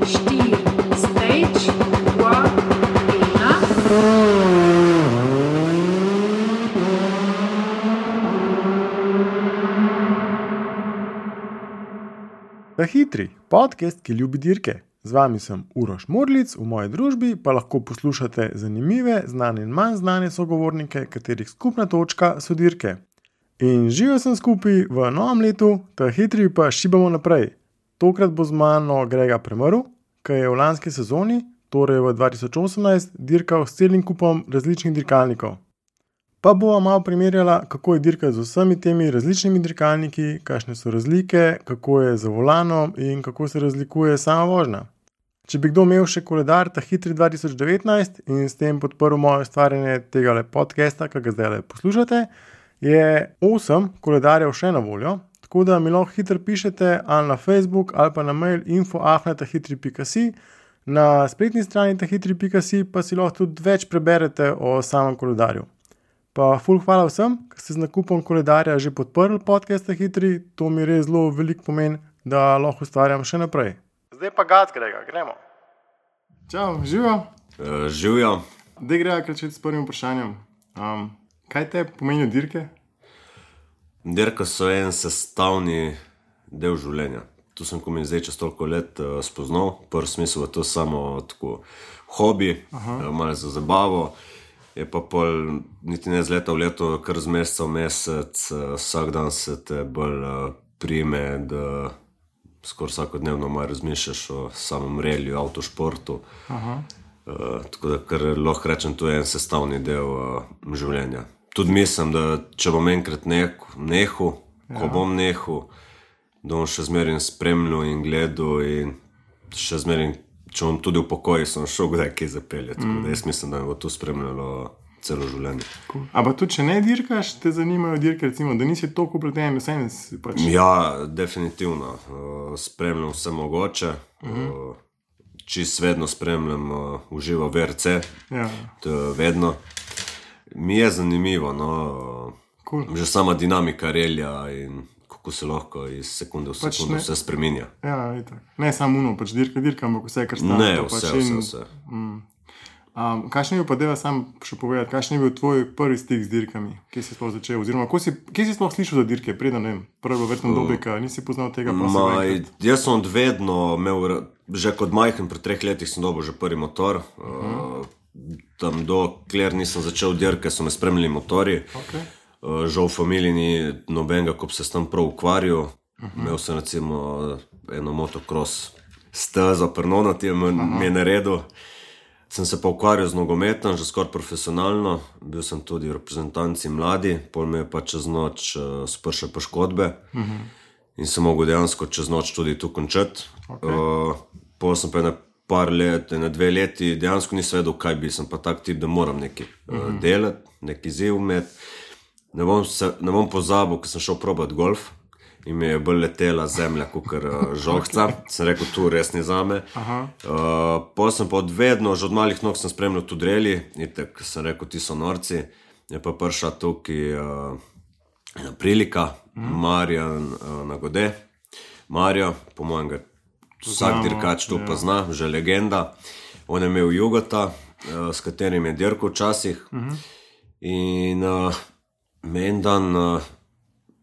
4, stage, 2, 1. Ta hitri podcast, ki ljubi dirke. Z vami sem Uroš Murlic, v moji družbi pa lahko poslušate zanimive, znane in manj znane sogovornike, katerih skupna točka so dirke. In živel sem skupaj v novem letu, ta hitri pa šibamo naprej. Tokrat bo z mano Grega Premrl, ki je v lanski sezoni, torej v 2018, dirkal s celim kupom različnih dirkalnikov. Pa bova malo primerjala, kako je dirka z vsemi temi različnimi dirkalniki, kakšne so razlike, kako je za volanom in kako se razlikuje sama vožnja. Če bi kdo imel še koledar ta hitri 2019 in s tem podprl moje ustvarjanje tega podcasta, ki ga zdaj poslušate, je 8 koledarjev še na voljo, tako da mi lahko hitro pišete ali na Facebook ali pa na mail info@tahitri.si. Na spletni strani tahitri.si pa si lahko tudi več preberete o samem koledarju. Pa ful hvala vsem, ki ste z nakupom koledarja že podprli podcast Hitri, to mi res zelo veliko pomeni, da lahko ustvarjam še naprej. Zdaj pa gac, Grega, gremo. Čau, živijo? Živijo. Dej Grega začeti s prvim vprašanjem. Kaj te pomenijo dirke? Dirke so en sestavni del življenja. Tu sem, ko mi zdaj čez toliko let spoznal, prvi smisel je to samo tako hobi, malo za zabavo. Je pa pol niti ne z leta v leto, kar z meseca v mesec, vsak dan se te bolj prime, da skoraj vsakodnevno malo razmišljaš o samem reliju, avtošportu. Tako da, kar lahko rečem, to je en sestavni del življenja. Tudi mislim, da če bom enkrat nehal, ko bom nehal, da bom še zmeraj spremljal in gledal in še zmeraj, če bom tudi v pokoji, sem šel kdaj kaj zapeljati. Tako da jaz mislim, da me bo to spremljalo celo življenje. Cool. A pa tudi, če ne dirkaš, te zanimajo dirke, recimo, da nisi toliko upleten, vsem si pač... Ja, definitivno. Spremljam vse mogoče. Čisto vedno spremljam uživo VRC. Ja. To vedno. Mi je zanimivo, no. Cool. Že sama dinamika relja in kako se lahko iz sekunde v sekundu vse spreminja. Ja, itak. Ne samo uno, pač dirka, ampak vse, kar stane. Ne, vse. Kakšen je bil pa, deva sam še povedati, kakšen je bil tvoj prvi stik z dirkami? Kje si sploh začel? Oziroma, kje si sploh slišal za dirke? Preden, ne vem, prvo verjetno dobika, nisi poznal tega pa Jaz sem odvedno imel, že kot majhen, pred 3 letih sem dobil že prvi motor. Tam dokler nisem začel dirke, so me spremljali motorji. Okay. Žal v familiji ni nobenega, ko bi se s tem prav ukvarjal. Imel sem recimo eno motocross stezo, Pernonati mi je naredil. Sem se pa ukvarjal z nogometom, že skoraj profesionalno. Bil sem tudi v reprezentanci mladi, pol me je pa čez noč spršel poškodbe. In sem mogel dejansko čez noč tudi tu končati. Okay. Pol sem pa par let, 2 leti, dejansko nisem vedel, kaj bi. Sem pa tak tip, da moram nekaj delati, nekaj ziv imeti. Ne bom pozabil, ko sem šel probati golf in mi je bolj letela zemlja kakor žohca. Sem rekel, tu res ni zame. Pol sem pa odvedno, že od malih nog sem spremljal tudi reli. Itak sem rekel, ti so norci. Je pa prišla tukaj ena prilika, Marjan Nagode. Marjo, po mojem ga vsak dirkač tu pozna, že legenda. On je imel Jugota, s katerim je dirkal včasih. In me en dan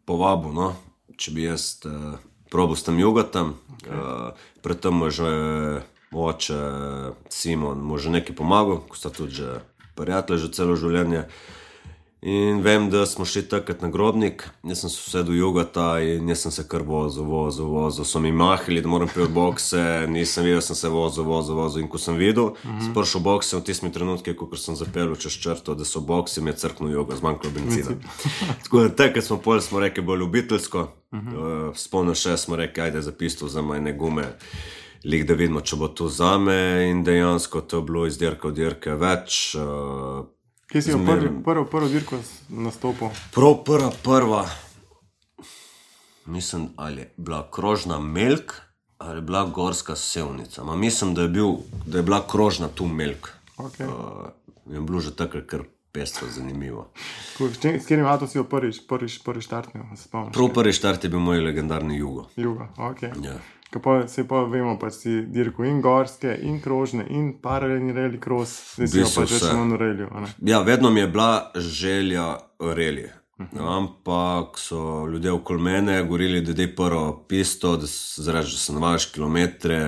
povabil, no, če bi jaz probal s tem Jugotom. Predtem mu že oče Simon mu že nekaj pomagal, ko sta tudi že prijatelji že celo življenje. In vem, da smo šli takrat na Grobnik, jaz sem se usedel Jugota in jaz sem se kar vozil. So mi mahali, da moram prijeti bokse, nisem videl, sem se vozil. In ko sem videl, spršel bokse v tistimi trenutki, ko sem zapeljal čez črto, da so bokse, mi je crknil Juga, zmanjkalo benzina. Tako da takrat smo rekli bolj ljubiteljsko, spomnil še smo rekli, ajde za pisto vzema ene gume, lik da vidimo, če bo to zame in dejansko to je bilo iz dirke v dirke več. Kje si prvo dirko nastopil? Prva, mislim, ali je bila krožna Melk ali je bila gorska Sevnica. Mislim, da je bila krožna tu Melk. Okay. Je bilo že takrat kar pestro, zanimivo. S katerim avtom si jo prvi štartnil, se spomniš? Prvi štart je bil moj legendarni Jugo. Jugo, ok. Ja. Se pa vemo, pa si dirko in gorske, in krožne, in paralelni rally cross, zdaj si jo pač več manj v rallyu. Ja, vedno mi je bila želja rally. Ampak so ljudje okoli mene govorili, da dej prvo pisto, da se navajaš kilometre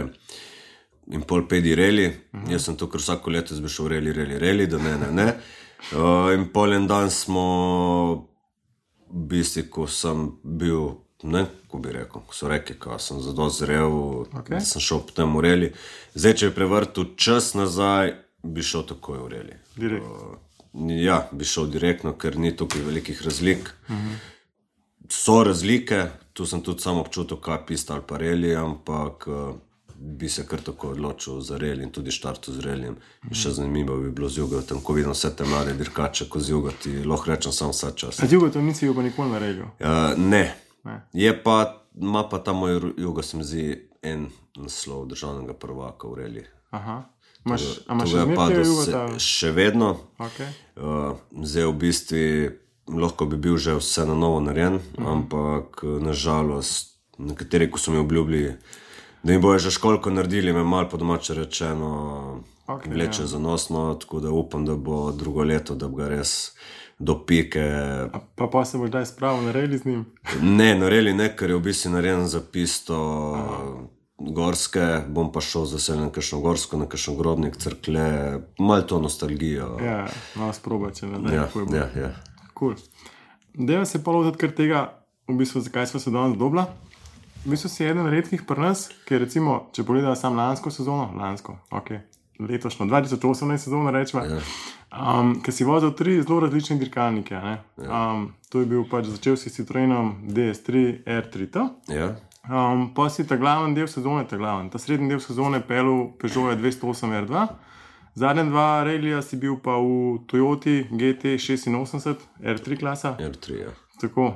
in pol pedi rally. Jaz sem to, ker vsako leto bi šel rally, da ne. In pol en dan smo, v bistvu, ko sem bil, ne, ko bi rekel, ko so rekli, ko sem zadost zrel, da sem šel potem v rally. Zdaj, če bi prevrtil čas nazaj, bi šel takoj v rally. Direkt. Ja, bi šel direktno, ker ni tukaj velikih razlik. So razlike, tu sem tudi sam občutil, kaj pista ali pa rally, ampak bi se kar tako odločil za rally in tudi štartu z rallyjem. Še zanimivo bi bilo z Jugo, tam ko vidim vse te mlade dirkače, ko z Jugo ti lahko rečem samo vsa čas. A z Jugo to nisi bil pa nikoli na rallyu? Ne. Je pa, ima pa ta moj Jugo, se mi zdi, en naslov državnega prvaka v rally. Aha. Imaš še zmeraj Jugo? Še vedno. Okay. Zdaj v bistvu lahko bi bil že vse na novo narejen, ampak nažalost nekateri, ko so mi obljubili, da mi bojo že školko naredili, me malo po domače rečeno vleče zanosno, tako da upam, da bo drugo leto, da bi ga res do pike. Pa se boš daj spravil na rally z njim? Ne, na rally ne, ker je v bistvu narejen za pisto gorske, bom pa šel z veseljem na kakšno gorsko, na kakšno Grobnik, Cerklje, malo to nostalgijo. Ja, malo sprobače, ne? Ja. Cool. Dejva se pa loviti kar tega, v bistvu, zakaj smo se danes dobila. V bistvu si eden redkih pri nas, ker recimo, če pogledala sam lansko sezono, letošnjo, 2018 sezono rečeva, ker si vozil 3 zelo različne dirkalnike, ne? To je bil pač, začel si s Citroenom DS3 R3T. Ja. Pa si ta glavni del sezone, ta srednji del sezone pelil Peugeot 208 R2, zadnja 2 rallija si bil pa v Toyoti GT86 R3 klasa. R3, ja. Tako,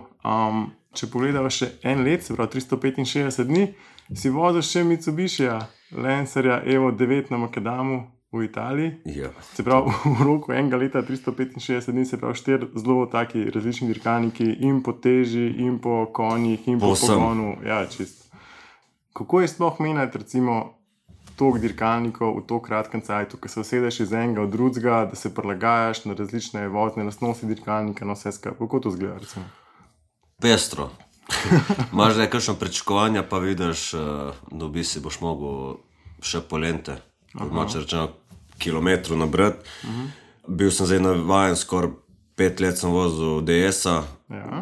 če pogledava še en let, se pravi 365 dni, si vozil še Mitsubishija, Lancerja Evo 9 na Makadamu v Italiji. Ja. Se pravi, v roku enega leta 365 dni, se pravi 4 zelo taki različni dirkalniki in po teži, in po konjih, in po pogonu. Ja, čist. Kako je sploh menjati, recimo, toliko dirkalnikov v to kratkem cajtu, ko se usedeš iz enega od drugega, da se prilagajaš na različne vozne lastnosti dirkalnika, na vse skupaj. Kako to izgleda, recimo? Pestro. Imaš zdaj kakšno pričakovanja, pa vidiš, da v bistvu boš mogel še polente, domače rečeno, kilometru nabrati. Bil sem zdaj navajen, skoraj 5 let sem vozil DS-a,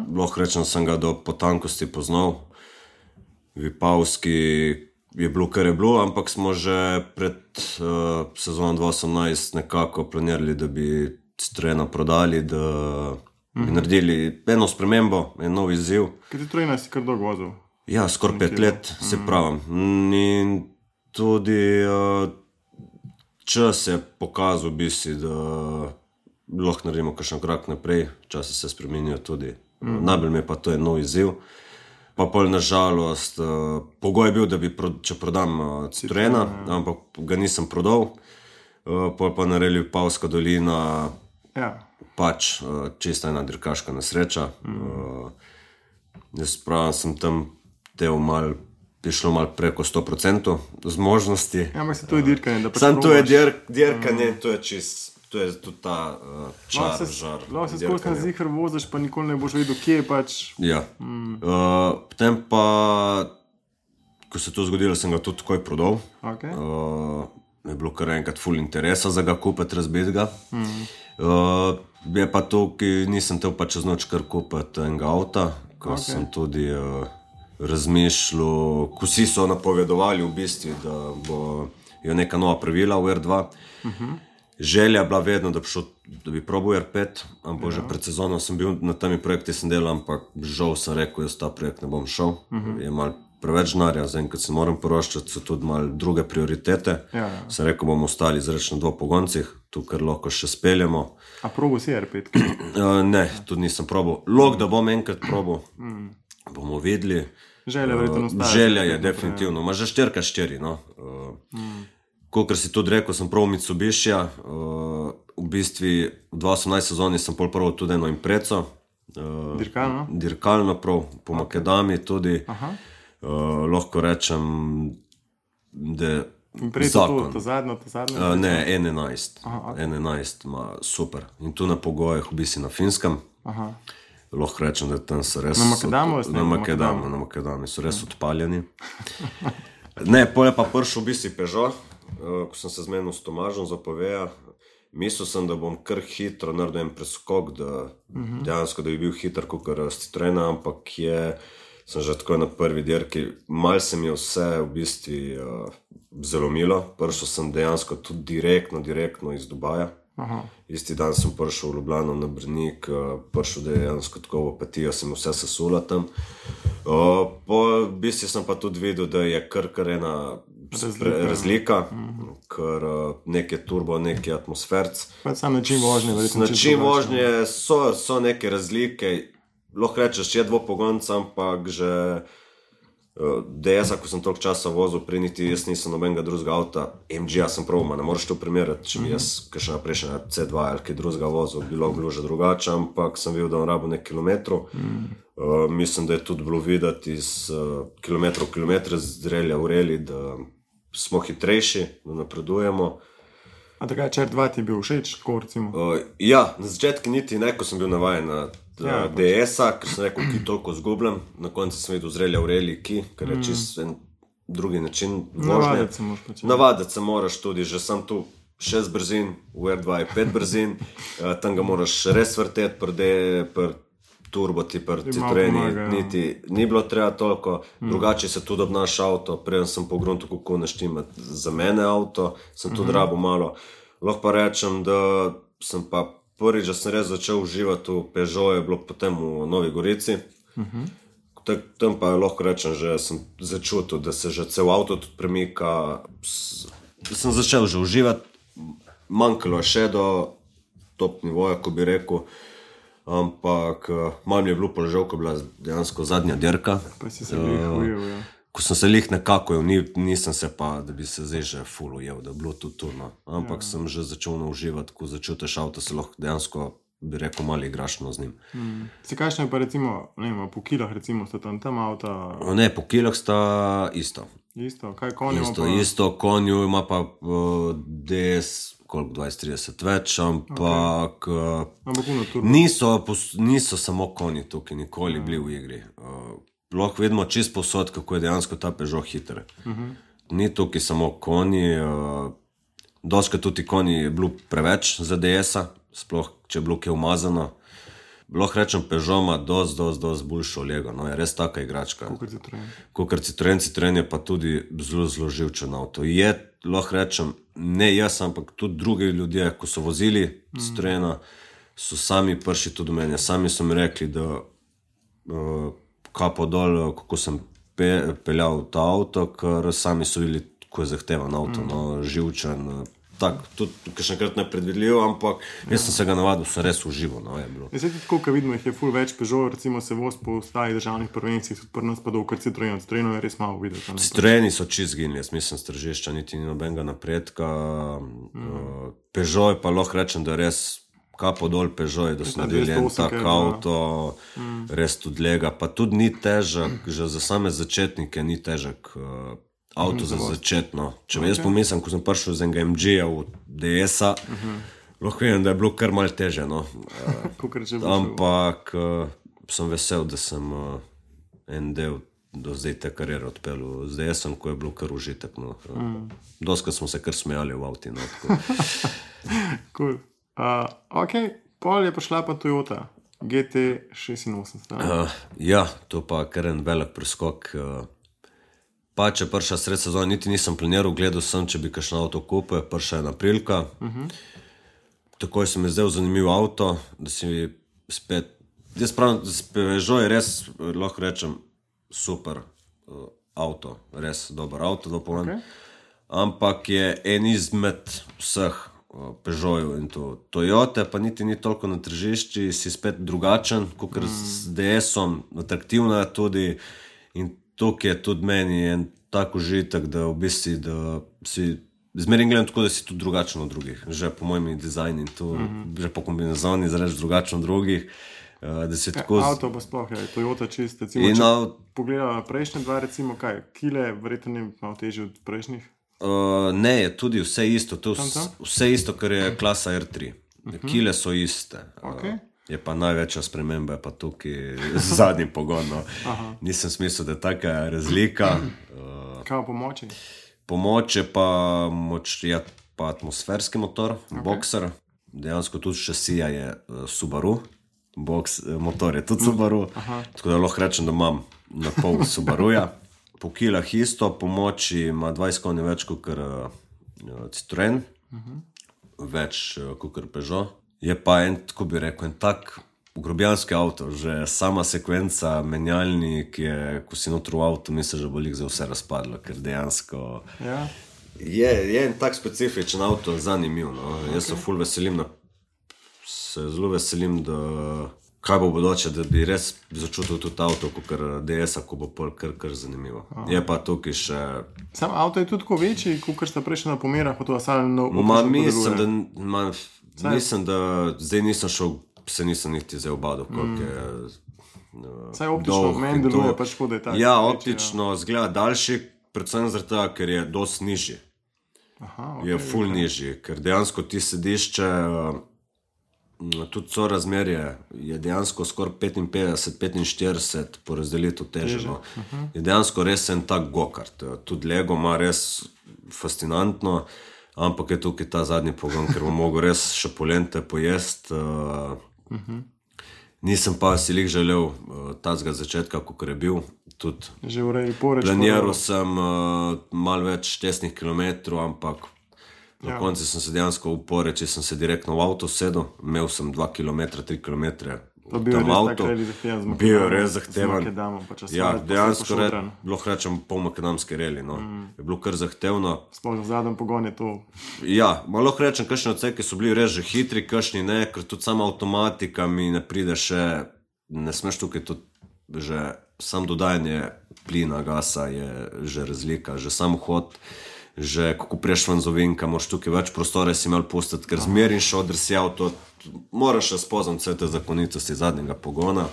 lahko rečem, sem ga do potankosti poznal. Vipavski je bilo, kar je bilo, ampak smo že pred sezono 2018 nekako planirali, da bi Citroena prodali, da bi naredili eno spremembo, en nov izziv. Kaj Citroena si kar dolgo vozil? Ja, skoraj 5 let, se pravim. In tudi čas je pokazal, v bistvu, da lahko naredimo kakšen korak naprej, časi se spremenijo tudi. Najbolj mi je pa to en nov izziv. Pa pol nažalost, pogoj je bil, da bi, če prodam Citroena, ampak ga nisem prodal. Pol pa naredili Vipavska dolina, pač čista ena dirkaška nesreča. Jaz pravim, sem tam šlo malo preko 100% zmožnosti. Ja, ampak se to je dirkanje, da pač sam to je dirkanje, to je čist. To je tudi ta čar, žar. Lahko se skozi na zihar voziš, pa nikoli ne boš vedel, kje je pač. Ja. Potem pa, ko se to zgodilo, sem ga tudi takoj prodal. Je bilo kar enkrat ful interesa za ga kupiti, razbiti ga. Je pa to, ki nisem tel pa čez noč kar kupiti enega avta, ko sem tudi razmišljal, ko vsi so napovedovali v bistvu, da bo neka nova pravila v R2. Želja je bila vedno, da bi probal R5, ampak že pred sezono sem bil na temi projekti, sem delal, ampak žal sem rekel, jaz ta projekt ne bom šel. Je malo preveč denarja, zdaj, kad se moram poroščati, so tudi malo druge prioritete. Sem rekel, bomo ostali zreč na 2 pogoncih, tu kar lahko še speljemo. A probal si R5? Ne, tudi nisem probal. Lahko, da bom enkrat probal, bomo videli. Želja verjetno ostaja. Želja je definitivno, ima že 4x4, no. Kakor si tudi rekel, sem prav Mitsubishija. V bistvu v 2018 sezoni sem prvo tudi eno impreco. Dirkalno prav, po Makedami tudi. Lahko rečem, da zakon. To zadnjo? Ne, 11 ima super. In tu na pogojih, v bistvu na Finskem. Lahko rečem, da tam so res... Na Makedami so res odpaljeni. Ne, pol je pa prišel v bistvu Peugeot, ko sem se zmenil s Tomažom za Poveja. Mislil sem, da bom kar hitro naredil en preskok, dejansko, da bi bil hiter kakor Citroena, ampak sem že tako na prvi dirki. Mal se mi je vse v bistvu zalomilo. Prišel sem dejansko tudi direktno iz Dubaja. Isti dan sem prišel v Ljubljano na Brnik, prišel dejansko tako v Opetijo, sem vse sesula tam. Po bistvu sem pa tudi videl, da je kar ena razlika, ker nek je turbo, nek je atmosferc. Sam način vožnje. Način vožnje so neke razlike, lahko rečeš, je dvopogonca, ampak že DS-a, ko sem toliko časa vozil, niti jaz nisem nobenega drugega avta, MG-a sem prav, ne moreš to primerjati, če bi jaz kakšna prejšnja C2 ali kaj drugega vozil, bilo že drugače, ampak sem videl, da on rabo nek kilometrov. Mislim, da je tudi bilo videti iz kilometre z relja v reli, da smo hitrejši, da napredujemo. A takaj CR2 ti je bil všeč, tako recimo? Ja, na začetku niti ne, ko sem bil navajen na DS-a, ker sem rekel, ki toliko zgubljam. Na koncu sem videl z relja v reli, ker je čist en drugi način vožnje. Navaditi se moraš tudi, že sam tu 6 brzin, v R2 je 5 brzin, tam ga moraš res vrteti, pri turbo ti pri Citroeni niti ni bilo treba toliko, drugače se tudi obnaša avto, preden sem pogrunil, kako naštimati za mene avto, sem tudi rabo malo. Lahko pa rečem, da sem pa prvič, da sem res začel uživati v Peugeot, je bilo potem v Novi Gorici. Tam pa lahko rečem, že sem začutil, da se že cel avto tudi premika, da sem začel že uživati, manjkalo je še do top nivoja, ko bi rekel, ampak malo mi je bilo položav, ko je bila dejansko zadnja dirka. Pa si se ujel, ja. Ko sem se nekako ujel, nisem se pa, da bi se zdaj že ful ujel, da je bilo tudi turno. Ampak sem že začel uživati, ko začutiš avto, se lahko dejansko, bi rekel, malo igraš z njim. Si kakšno je pa recimo, ne vem, po kilah recimo sta tam avta? Ne, po kilah sta isto. Isto, kaj konju ima pa? Isto, konju ima pa DS, koliko 20-30 več, ampak niso samo konji tukaj nikoli bili v igri. Lahko vidimo čist posod, kako je dejansko ta Peugeot hiter. Ni tukaj samo konji, doskrat tudi konji je bilo preveč za DS-a, sploh če je bilo kaj umazano. Lahko rečem, Peugeot ima dosti boljšo lego, je res taka igračka. Kakor Citroen. Citroen je pa tudi zelo živčen avto. Je, lahko rečem, ne jaz, ampak tudi drugi ljudje, ko so vozili Citroena, so sami prši tudi meni. Sami so mi rekli, da kapo dol, kako sem peljal ta avto, ker sami so videli, kako je zahtevan avto, živčen, tako, tudi kakšnekrat nepredvidljiv, ampak jaz sem se ga navadil, sem res užival. Zdaj tudi tako, ko vidimo, jih je ful več Peugeot, recimo se voz po ostalih državnih prvencih, tudi pri nas pa dolgo Citroen. Citroenov je res malo videti. Citroeni so čist zginili, jaz mislim, s tržišča niti ni nobenega napredka. Peugeot pa lahko rečem, da res kapo dol Peugeot, da so naredili en tak avto, res tudi lega, pa tudi ni težek, že za same začetnike ni težek avto za začetno. Če jaz pomislim, ko sem prišel z enega MG-a v DS-a, lahko vem, da je bilo kar malo teže, ampak sem vesel, da sem en del do zdaj te karijere odpeljal z DS-om, ko je bilo kar užitek. Doskrat smo se kar smejali v avti. Cool. Ok, pol je prišla pa Toyota GT86. Ja, to pa kar en velik preskok. Pa če prišla sred sezona, niti nisem planiral, gledal sem, če bi kakšen avto kupil, prišla je aprilka. Takoj se mi je zdel zanimiv avto, da si spet, jaz pravim, Peugeot je res, lahko rečem, super avto, res dober avto, ampak je en izmed vseh Peugeotov in to Toyota, pa niti ni toliko na tržišči, si spet drugačen, kakor z DS-om, atraktivna je tudi in tukaj je tudi meni en tak užitek, da v bistvu, da si zmeraj gledam tako, da si tudi drugačen od drugih. Že po mojem dizajnu in to, že po kombinazoni zreč drugačen od drugih. Da si tako... Avto pa sploh je, Toyota čist, recimo, če pogledala prejšnje dva, recimo kaj, kile, verjetno je malo težje od prejšnjih? Ne, je tudi vse isto, to vse isto, kar je klasa R3. Kile so iste. Je pa največja sprememba, pa tukaj z zadnjim pogonom. Nisem smislil, da je taka razlika. Kaj pomoči? Pomoč je pa atmosferski motor, Boxer. Dejansko tudi šasija je Subaru. Motor je tudi Subaru. Tako da lahko rečem, da imam na pol Subaruja. Po kilah isto, pomoči ima 20 konj več kot Citroen. Več kot Peugeot. Je pa tako bi rekel, en tak grobijanski avto, že sama sekvenca, menjalnik je, ko si notro v avtu, misliš, da bo lik za vse razpadlo, ker dejansko je en tak specifičen avto, zanimiv. Jaz se ful veselim, zelo veselim, da kaj bo bodoče, da bi res začutil tudi avto, kot DS-a, ko bo pol kar zanimivo. Je pa tukaj še... Sam avto je tudi tako večji, kot sta prejšnja na pomerah, pa to asalno... Mislim, da zdaj nisem šel, se nisem niti zdaj obadal, koliko je... Saj optično meni deluje, pač škoda je tako. Ja, optično zgleda daljši, predvsem zaradi tega, ker je dosti nižji. Je ful nižji, ker dejansko ti sedišče, tudi so razmerje, je dejansko skoraj 55-45 po razdelitev teženo. Je dejansko res en tak go-kart. Tudi Lego ima res fascinantno, ampak je tukaj ta zadnji pogon, ker bom mogel res še polente pojest. Nisem pa si lih želel tazga začetka, kot je bil. Planiral sem malo več testnih kilometrov, ampak na konci sem se dejansko v Poreči, sem se direktno v avto sedel, imel sem 2 km, 3 km tam avto. Bil je res zahteven. Ja, dejansko lahko rečem pol makadamske reli. Je bilo kar zahtevno. Sploh v zadnjem pogon je to. Ja, lahko rečem, kakšni odseki so bili res že hitri, kakšni ne, ker tudi sama avtomatika mi ne pride še, ne smeš tukaj tudi že sam dodajanje plina, gasa je že razlika, že sam hod, že kako preš van z ovinka, moraš tukaj več prostore si imel pustiti, ker zmerin šodr si avto, moraš še spoznati vse te zakonitosti zadnjega pogona.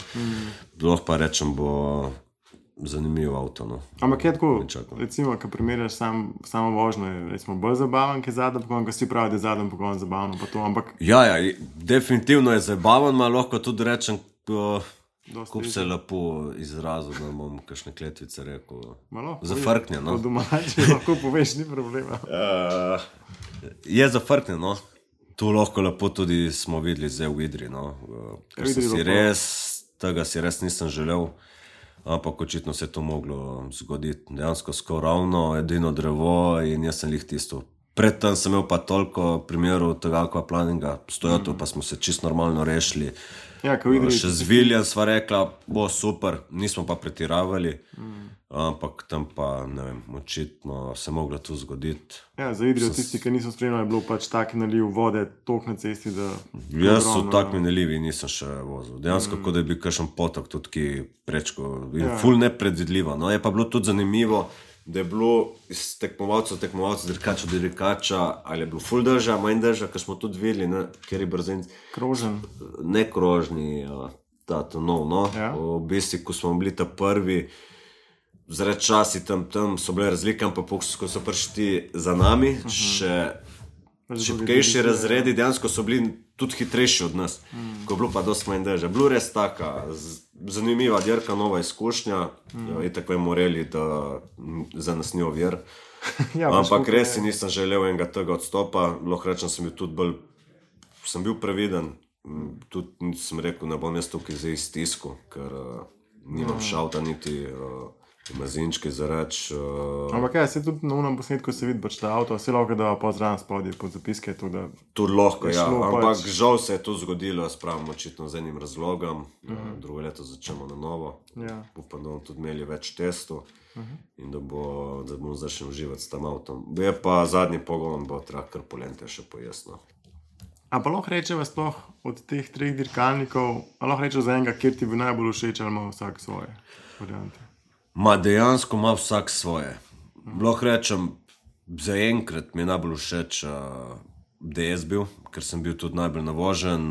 Lahko pa rečem, bo zanimiv avto. Ampak je tako, recimo, ko primerjaš samo vožnjo, je recimo bolj zabaven, ki je zadnji pogon, ko si pravi, da je zadnji pogon zabavno, pa to, ampak... Ja, definitivno je zabaven, ma lahko tudi rečem, kup se lepo izrazil, da bom kakšne kletvice rekel. Zafrknje, Po domači lahko poveš, ni problema. Je zafrknje, Tu lahko lepo tudi smo videli zdaj v Idri, Ker tega si res nisem želel, ampak očitno se je to moglo zgoditi. Dejansko skoraj ravno, edino drevo in jaz sem lih tisto. Predtem sem imel pa toliko primerov tega aquaplaninga, s Toyoto pa smo se čisto normalno rešili. Še z Viljem sva rekla, bo super, nismo pa pretiravali, ampak tam pa, ne vem, očitno se moglo to zgoditi. Ja, za Idrijo tisti, ki niso spremljali, je bilo pač tak naliv vode, tok na cesti, da... Jaz so tak nalivi nisem še vozil. Dejansko, kot da je bil kakšen potok tudi ki prečko, ful nepredvidljivo. Je pa bilo tudi zanimivo, da je bilo iz tekmovalcev, dirkača do dirkača, ali je bilo ful drža, manj drža, ker smo tudi videli, ker je brzen. Krožen. Ne krožni, to nov. V bistvu, ko smo bili ta prvi, zaradi časi tam so bile razlike, ampak ko so prišli za nami, še šibkejši razredi, dejansko so bili tudi hitrejši od nas, ko je bilo pa dosti manj drža. Bilo res taka zanimiva dirka, nova izkušnja, itak vemo morali, da za nas ni ovir, ampak res si nisem želel enega tega odstopa, lahko rečem, sem bil previden, tudi sem rekel, ne bom jaz tukaj zdaj stisku, ker nimam šalta niti mazinčke za reč. Ampak se tudi na unem posnetku se vidi, da avto vse lahko da pozdrav spodaj pod zapiske. Tudi lahko, ja, ampak žal se je to zgodilo, spravim očitno z enim razlogom, drugo leto začnemo na novo, upam, da bomo tudi imeli več testov in da bomo začeli uživati s tem avtom. Je pa zadnji pogon, bo treba kar polente še pojasno. A pa lahko rečeva sploh od teh 3 dirkalnikov, a lahko rečeva za enega, kjer ti bi najbolj všeč, ali ima vsak svoje variante? Dejansko ima vsak svoje. Lahko rečem, Zaenkrat mi je najbolj všeč DS bil, ker sem bil tudi najbolj navožen.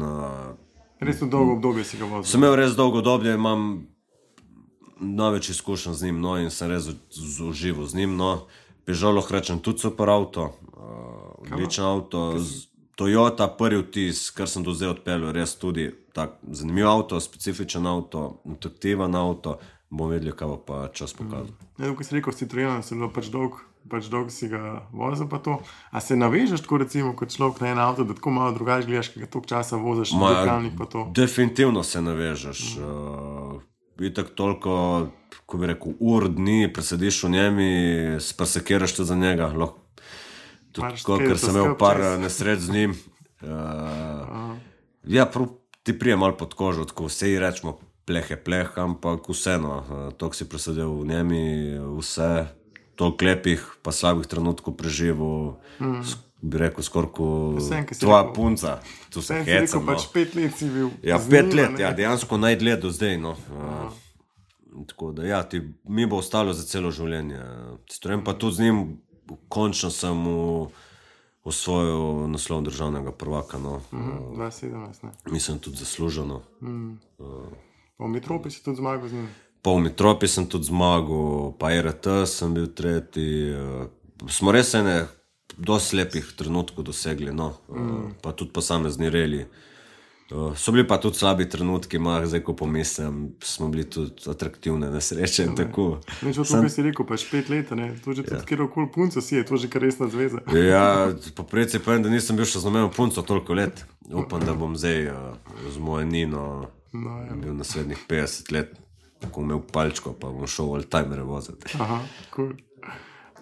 Res v dolgo obdobje si ga vozil. Sem imel res dolgo obdobje, imam največ izkušenj z njim, in sem res užival z njim. Peugeot lahko rečem tudi super avto, odličen avto. Toyota, prvi vtis, kar sem do zdaj odpeljal, res tudi tak zanimiv avto, specifičen avto, atraktiven avto. Bom vedel, kaj bo pa čas pokazal. Ko si rekel, Citroena, si bilo pač dolgo si ga vozil pa to. A se navežeš tako recimo kot človek na en avto, da tako malo drugače gledaš, kaj ga toliko časa voziš na dirkalnik pa to? Definitivno se navežeš. Itak toliko, ko bi rekel, dni presediš v njemi, presekiraš tudi za njega. Tako, ker sem imel par nesreč z njim. Ti prije malo pod kožo, tako vse rečemo pleh, ampak vseeno, toliko si presedel v njemi, vse, toliko lepih pa slabih trenutkov preživel, bi rekel skorko tvoja punca. Tu se hecam. Rekel, pač 5 let si bil. Ja, 5 let, dejansko najdlje do zdaj, Tako da, mi bo ostalo za celo življenje. Citroen pa tudi z njim, končno sem osvojil naslov državnega prvaka. 2017, ne? Mislim, tudi zasluženo. Pa v Metropi si tudi zmagal z njim? Pa v Metropi sem tudi zmagal, pa RT sem bil tretji. Smo res dosti lepih trenutkov dosegli, pa tudi posamezni reli. So bili pa tudi slabi trenutki, zdaj ko pomislim, smo bili tudi atraktivne nesreče in tako. Neč od tukaj si rekel, pač 5 let, to že tudi kjerokoli punco si je, to že kar resna zveza. Ja, po preci povem, da nisem bil še z nobeno punco toliko let. Upam, da bom zdaj z mojo Nino bil naslednjih 50 let, ko imel palčko, pa bom šel oldtimere voziti. Aha, cool.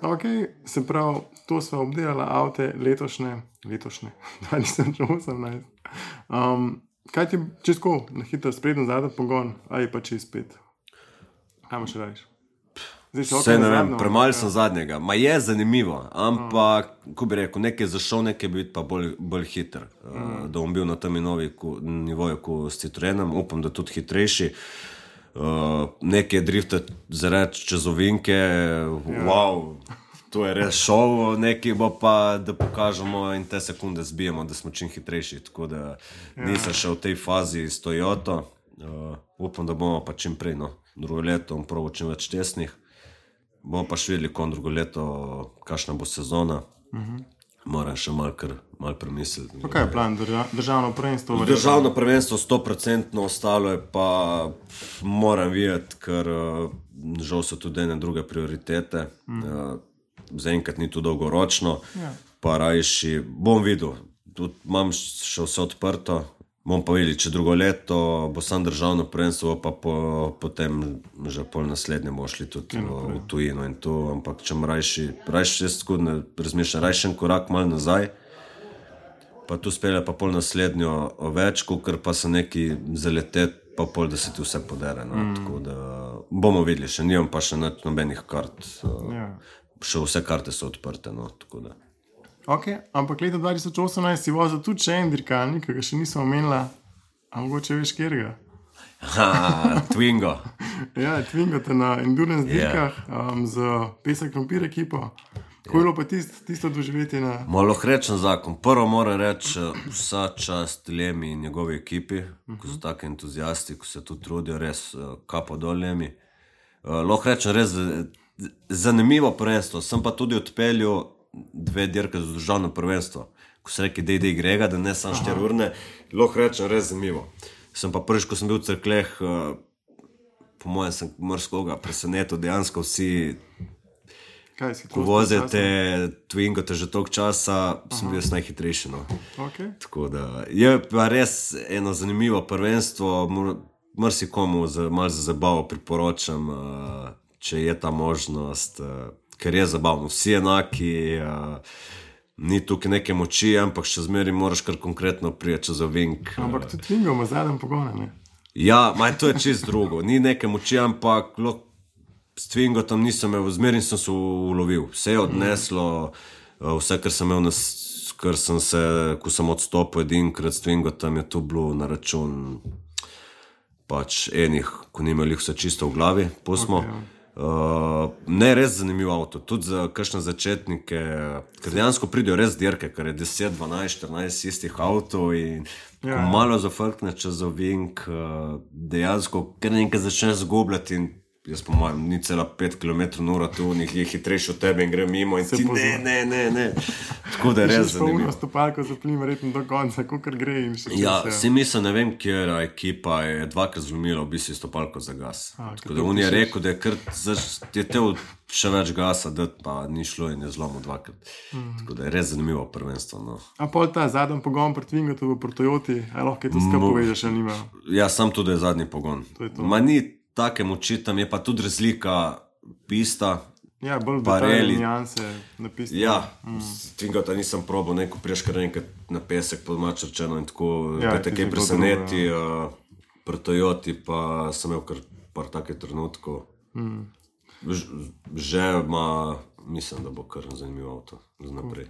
Ok, se pravi, to sva obdelala avte letošnje, 2018. Kaj ti čisto na hitro sprednjo zadnjo pogon, ali pa čez 5? Kaj imaš rajiš? Vse ne vem, premalo sem zadnjega. Je zanimivo, ampak, ko bi rekel, nekaj zašel, nekaj bi biti pa bolj hiter. Da bom bil na tem nivoju, ko s Citroenom, upam, da tudi hitrejši. Nekaj driftati zareč čez ovinke, wow, to je res šov, nekaj bo pa, da pokažemo in te sekunde zbijemo, da smo čim hitrejši, tako da nisem še v tej fazi s Toyoto. Upam, da bomo pa čim prej, drugo leto bom probal čim več tesnih. Bomo pa še videli, kon drugo leto, kakšna bo sezona. Moram še malo premisliti. Pa kaj je plan, državno prvenstvo? Državno prvenstvo 100%, ostalo je pa moram videti, ker žal so tudi ene druge prioritete. Zaenkrat ni to dolgoročno, pa rajši bom videl, tudi imam še vse odprto, bom pa videl, če drugo leto bo sam državno prvenstvo, pa potem že pol naslednje bomo šli tudi v tujino in to, ampak če rajši jaz tako ne razmišljam, rajši en korak malo nazaj, pa tu spelje pa pol naslednjo več, ker pa se neki zaletet, pa pol, da se ti vse podere, tako da bomo videli, še nimam pa še nobenih kart. Še vse karte so odprte, tako da. Ok, ampak leta 2018 si vozil tudi še en dirkalnik, ki ga še nisem omenila, a mogoče veš kjerga? Twingo. Ja, Twingo te na endurance dirkah z Pesek Krompir ekipo. Kako je bilo pa tisto doživeti na... Malo rečem zakon. Prvo moram reči vsa čast Lemi in njegovi ekipi, ko so tako entuzijasti, ko se tu trudijo, res kapo dol Lemi. Lahko rečem res zanimivo prvenstvo, sem pa tudi odpeljal 2 dirke za državno prvenstvo, ko se reki DD Grega, da ne sam 4 urne, lahko rečem res zanimivo. Sem pa prvič, ko sem bil v Cerkleh, po mojem sem mrskoga presenetil, dejansko vsi, ko vozite Twingo te že toliko časa, sem bil najhitrejši. Tako da je pa res eno zanimivo prvenstvo, marsikomu malo za zabavo priporočam, če je ta možnost, ker je zabavno. Vsi enaki, ni tukaj neke moči, ampak še zmeri moraš kar konkretno prijeti čez ovink. Ampak tudi Twingo ima zadnjem pogona, ne? Ja, to je čist drugo. Ni neke moči, ampak s Twingo tam nisem imel, zmeri sem se ulovil. Vse je odneslo, vse, kar sem imel, ko sem odstopil edinkrat s Twingo, tam je to bilo na račun pač enih, ko ni imeli vse čisto v glavi, pustimo. Ne, res zanimiv avto, tudi za kakšne začetnike, ker dejansko pridejo res dirke, ker je 10, 12, 14 istih avtov in ko malo zafrkne čez ovink, dejansko kar nekaj začneš zgubljati in jaz po mojem, ni cela 5 km/h, tu njih je hitrejši od tebe in gre mimo in ti ne. Tako da je res zanimivo. Še stopalko zaplim verjetno do konca, kakor gre in še Ja, si mislim, ne vem, kjera ekipa je dvakrat zlomila v bistvu stopalko za gas. Tako da on je rekel, da je kar je tev še več gasa dati, pa ni šlo in je zlomil dvakrat. Tako da je res zanimivo prvenstvo. No. A pol ta zadnji pogon pri Twingatu v Toyoti, a lahko to skupaj povežeš, ali nima? Ja, sam tudi je zadnji pogon. Ma ni take moči, tam je pa tudi razlika pista. Ja, bolj detaljne nijanse na pisti. Ja, Twingata nisem probal, neko priješ kar enkrat na pesek pod mačarčeno in tako, kaj te preseneti, pri Toyoti pa sem imel kar par takih trenutkov. Že ima, mislim, da bo kar zanimivo avto za naprej.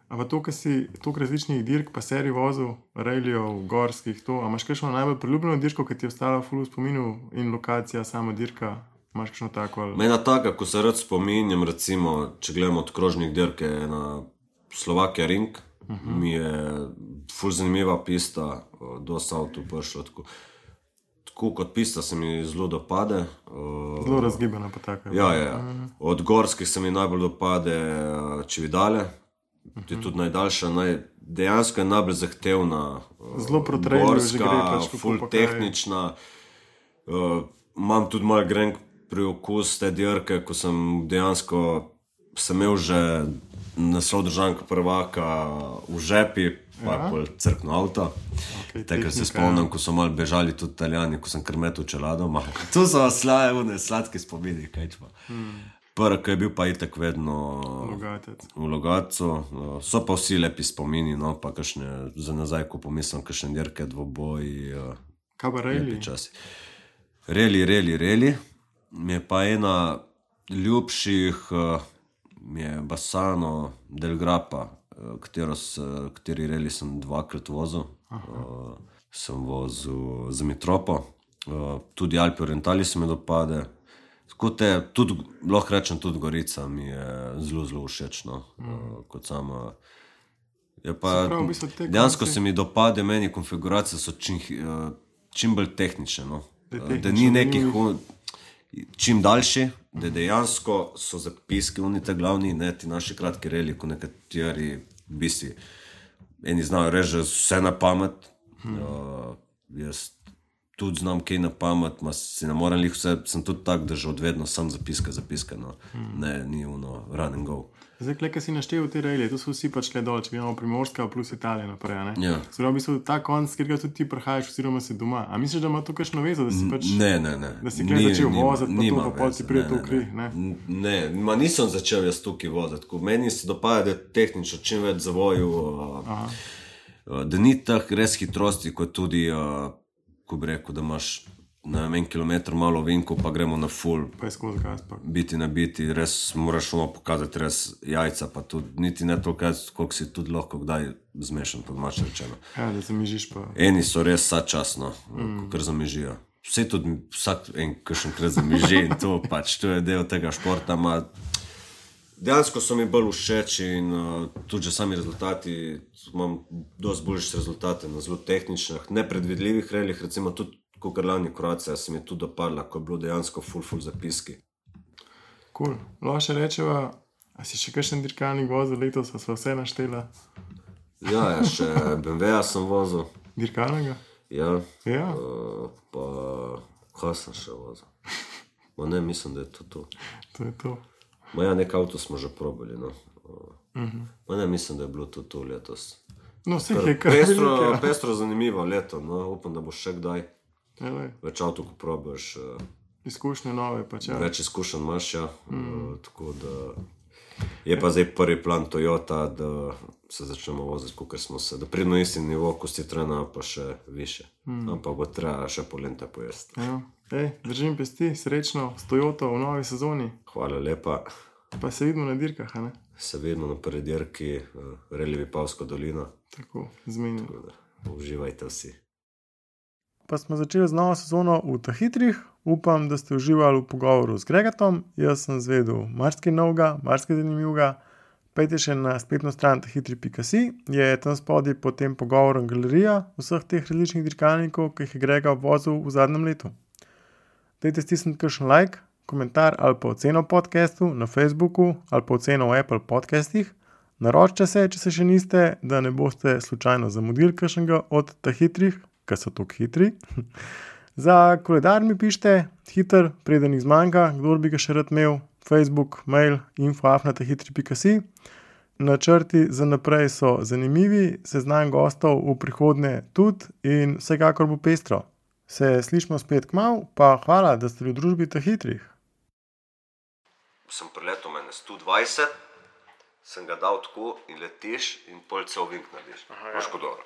A pa to, ko si toliko različnih dirk, pa serij vozil, rallijev, gorskih, to, a imaš kakšno najbolj priljubljeno dirko, ki ti je ostala ful v spominu in lokacija, sama dirka, imaš kakšno tako? Ali... Mena taka, ko se rad spominjam, recimo, če gledamo od krožnih dirk, je na Slovakia Ring, mi je ful zanimiva pista, dosta avtov prišlo, tako kot pista se mi zelo dopade. Zelo razgibana pa taka. Ja. Od gorskih se mi najbolj dopade Cividale, to je tudi najdaljša, dejansko je najbolj zahtevna, gorska, ful tehnična. Imam tudi malo grenk priokus te dirke, ko sem dejansko imel že naslov državnega prvaka v žepi, pa je pol crkno avto. Takrat se spomnim, ko so malo bežali tudi Italijani, ko sem krmetil čeladoma. To so sladki spomini, kaj čpa. Prvi, ki je bil pa itak vedno v Logatcu. So pa vsi lepi spomini, no, pa kakšne, za nazaj, ko pomislim, kakšne dirke, dvoboji. Kaj pa rally? Rally. Mi je pa ena ljubših, mi je Bassano del Grappa, kateri rally sem dvakrat vozil. Sem vozil za Mitropo. Tudi Alpi Orientali se mi dopade. Tako te, tudi, lahko rečem, tudi Gorica mi je zelo, zelo všeč, no, kot sama. Je pa, dejansko se mi dopade, meni konfiguracije so čim bolj tehnične, no. Da ni nekih, čim daljši, da dejansko so zapiski, oni te glavni, ne ti naši kratki reli, ko nekateri bisi, eni znajo reči vse na pamet, jaz tudi znam kaj na pamet, si ne moram lih vse, sem tudi tak, da že odvedno sam zapiske, no. Ne, ni ono run and go. Zdaj, kaj si naštel v te rejlje, to so vsi pač le dol, če gledamo Primorska plus Italija naprej, ne? Ja. Zdaj, v bistvu ta konc, kjer ga tudi ti prihajaš, oziroma si doma. A misliš, da ima to kakšno vezo, da si pač... Ne. Da si kaj začel voziti, pa to, pa pol ti prije to v kri, ne? Ne, nisem začel jaz tukaj voziti. Meni se dopada, da je tehnično čim več zavoju, da ni tak res hitrosti, kot tudi, ko bi rekel, da imaš na 1 kilometr malo vinko, pa gremo na full. Pa je skozi gas, pa. Biti na biti, res moraš ono pokazati res jajca, pa tudi niti ne toliko, koliko si tudi lahko kdaj zmešan, pod mače rečeno. Ja, da zamižiš pa. Eni so res sačasno, kar zamižijo. Vse tudi vsak kakšenkrat zamiži in to pač, to je del tega športa, dejansko so mi bolj všeč in tudi že sami rezultati, imam dosti boljše rezultate na zelo tehničnih, nepredvidljivih reljih, recimo tudi kakor lani Kroacija se mi tudi dopadla, ko je bilo dejansko full zapiski. Cool. Lahko še rečeva, a si še kakšen dirkalnik vozil letos, a sva vse naštela? Ja, še BMW-ja sem vozil. Dirkalnega? Ja. Ja. Pa kaj sem še vozil? Ne, mislim, da je to. To je to. Ja, nek avto smo že probali, no. Ne, mislim, da je bilo to letos. No, vse je kar velike. Pestro zanimivo leto, no, upam, da bo še kdaj. Več avto, ko probaš. Izkušnje nove, pač ja. Več izkušenj imaš, ja. Tako da je pa zdaj prvi plan Toyota, da se začnemo voziti, kakor smo se, da pridno isti nivo, ko si trena, pa še više. Ampak bo treba še polenta pojesti. Ja. Držim pesti, srečno s Toyoto v novi sezoni. Hvala lepa. Pa se vidimo na dirkah, a ne? Se vidimo na prvi dirki, Rally Vipavska dolina. Tako, zmenjeno. Uživajte vsi. Pa smo začeli z novo sezono v Tahitrih. upam, da ste uživali v pogovoru z Gregatom. Jaz sem zvedel marsikaj novega, marsikaj zanimivega. Pejte še na spletno stran tahitri.si, je tam spodaj pod tem pogovorom galerija vseh teh različnih dirkalnikov, ki jih je Grega vozil v zadnjem letu. Dajte stisniti kakšen like, komentar ali pa oceno podcastu na Facebooku ali pa oceno v Apple podcastih. Naročite se, če se še niste, da ne boste slučajno zamudili kakšnega od tahitrih, ker so tako hitri. Za koledar mi pišite, hiter, preden jih zmanjka, kdor bi ga še rad imel, Facebook, mail, info@tahitri.si. Načrti za naprej so zanimivi, seznam gostov v prihodnje tudi in vsekakor bo pestro. Se slišimo spet kmalu, pa hvala, da ste v družbi tahitrih. Sem preletel mene 120, sem ga dal tako in letiš in pol cel vink narediš. Moš kot dobro.